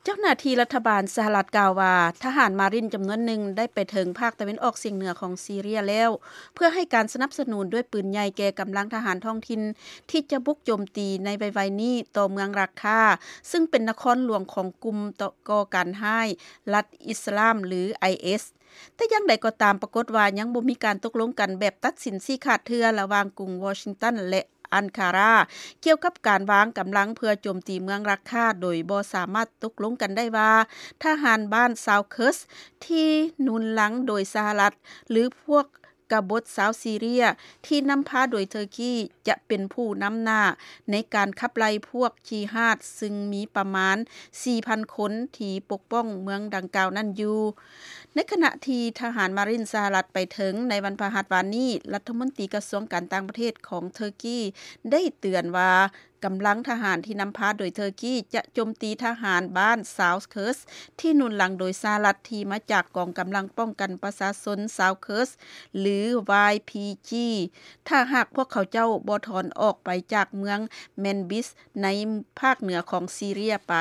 ເຈົ້າໜ້າທີ່ລັດຖະບານສະຫະລັດກ່າວວ່າ ທະຫານມາຣິນຈຳນວນໜຶ່ງໄດ້ໄປເຖິງພາກຕາເວັນອອກສ່ຽງເໜືອຂອງຊີເຣຍແລ້ວ ເພື່ອໃຫ້ການສະໜັບສະໜູນດ້ວຍປືນໃຫຍ່ແກ່ກຳລັງທະຫານທ້ອງຖິ່ນ ທີ່ຈະບຸກໂຈມຕີໃນໄວໆນີ້ຕໍ່ເມືອງຣັກຄາ ຊຶ່ງເປັນນະຄອນຫຼວງຂອງກຸ່ມກໍ່ການຮ້າຍລັດອິດສະລາມ ຫຼື ໄອເອສ. ແຕ່ຢ່າງໃດກໍຕາມ ປາກົດວ່າຍັງບໍ່ມີການຕົກລົງກັນແບບຕັດສິນຊີ້ຂາດເທື່ອ ລະຫວ່າງກຸງວໍຊິງຕັນ ແລະ ອັນຄາຣາ ກ່ຽວກັບການວາງກຳລັງເພື່ອໂຈມຕີເມືອງຣັກຄາ ໂດຍບໍ່ສາມາດຕົກລົງກັນໄດ້ວ່າ ທະຫານບ້ານຊາວເຄີສ ທີ່ໜູນຫຼັງໂດຍສະຫະລັດ ຫຼື ພວກກະບົດຊາວຊີເຣຍ ທີ່ນຳພາໂດຍເທີກີ ຈະເປັນຜູ້ນຳໜ້າໃນການຂັບໄລ່ພວກຈີຮາດ ຊຶ່ງມີປະມານ ສີ່ພັນຄົນ ທີ່ປົກປ້ອງເມືອງດັ່ງກ່າວນັ້ນຢູ່. ໃນຂະນະທີ່ທະຫານມາຣິນສະຫະລັດໄປເຖິງໃນວັນພະຫັດວານນີ້, ລັດຖະມົນຕີກະຊວງການຕ່າງປະເທດຂອງເທີກີໄດ້ເຕືອນວ່າ ກຳລັງທະຫານທີ່ນຳພາໂດຍເທີກີຈະໂຈມຕີທະຫານບ້ານຊາວເຄີສ ທີ່ໜູນຫຼັງໂດຍສະຫະລັດ ທີ່ມາຈາກກອງກຳລັງປ້ອງກັນປະຊາຊົນຊາວເຄີສ ຫຼື ວາຍພີຈີ ຖ້າຫາກພວກເຂົາເຈົ້າບໍ່ຖອນອອກໄປຈາກເມືອງແມນບິສ ໃນພາກເໜືອຂອງຊີເຣຍໄປ.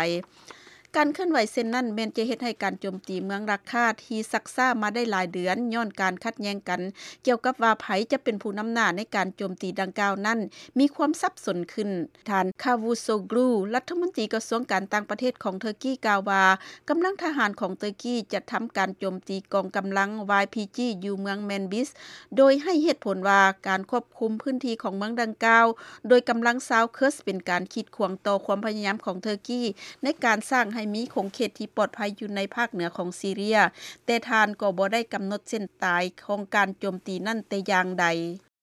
ການເຄື່ອນໄຫວເຊັ່ນນັ້ນ ແມ່ນຈະເຮັດໃຫ້ການໂຈມຕີເມືອງຣັກຄາ ທີ່ຊັກຊ້າມາໄດ້ຫຼາຍເດືອນ ຍ້ອນການຂັດແຍ່ງກັນກ່ຽວກັບວ່າໃຜຈະເປັນຜູ້ນຳໜ້າໃນການໂຈມຕີດັ່ງກ່າວນັ້ນ ມີຄວາມສັບສົນຂຶ້ນ. ທ່ານ ຄາວູໂຊກຣູ ລັດຖະມົນຕີກະຊວງການຕ່າງປະເທດຂອງເທີກີກ່າວວ່າ ກຳລັງທະຫານຂອງເທີກີຈະທຳການໂຈມຕີກອງກຳລັງວາຍພີຈີ ຢູ່ເມືອງແມນບິສ ໂດຍໃຫ້ເຫດຜົນວ່າ ການຄວບຄຸມພື້ນທີ່ຂອງເມືອງດັ່ງກ່າວ ໂດຍກຳລັງຊາວເຄີສ ເປັນການກີດຂວາງຕໍ່ຄວາມພະຍາຍາມຂອງເທີກີ ໃນການສ້າງໃຫ້ມີຂົງເຂດທີ່ປອດໄພຢູ່ໃນພາກເໜືອຂອງຊີເຣຍ, ແຕ່ທ່ານກໍບໍ່ໄດ້ກຳນົດເສັ້ນຕາຍຂອງການໂຈມຕີນັ້ນແຕ່ຢ່າງໃດ.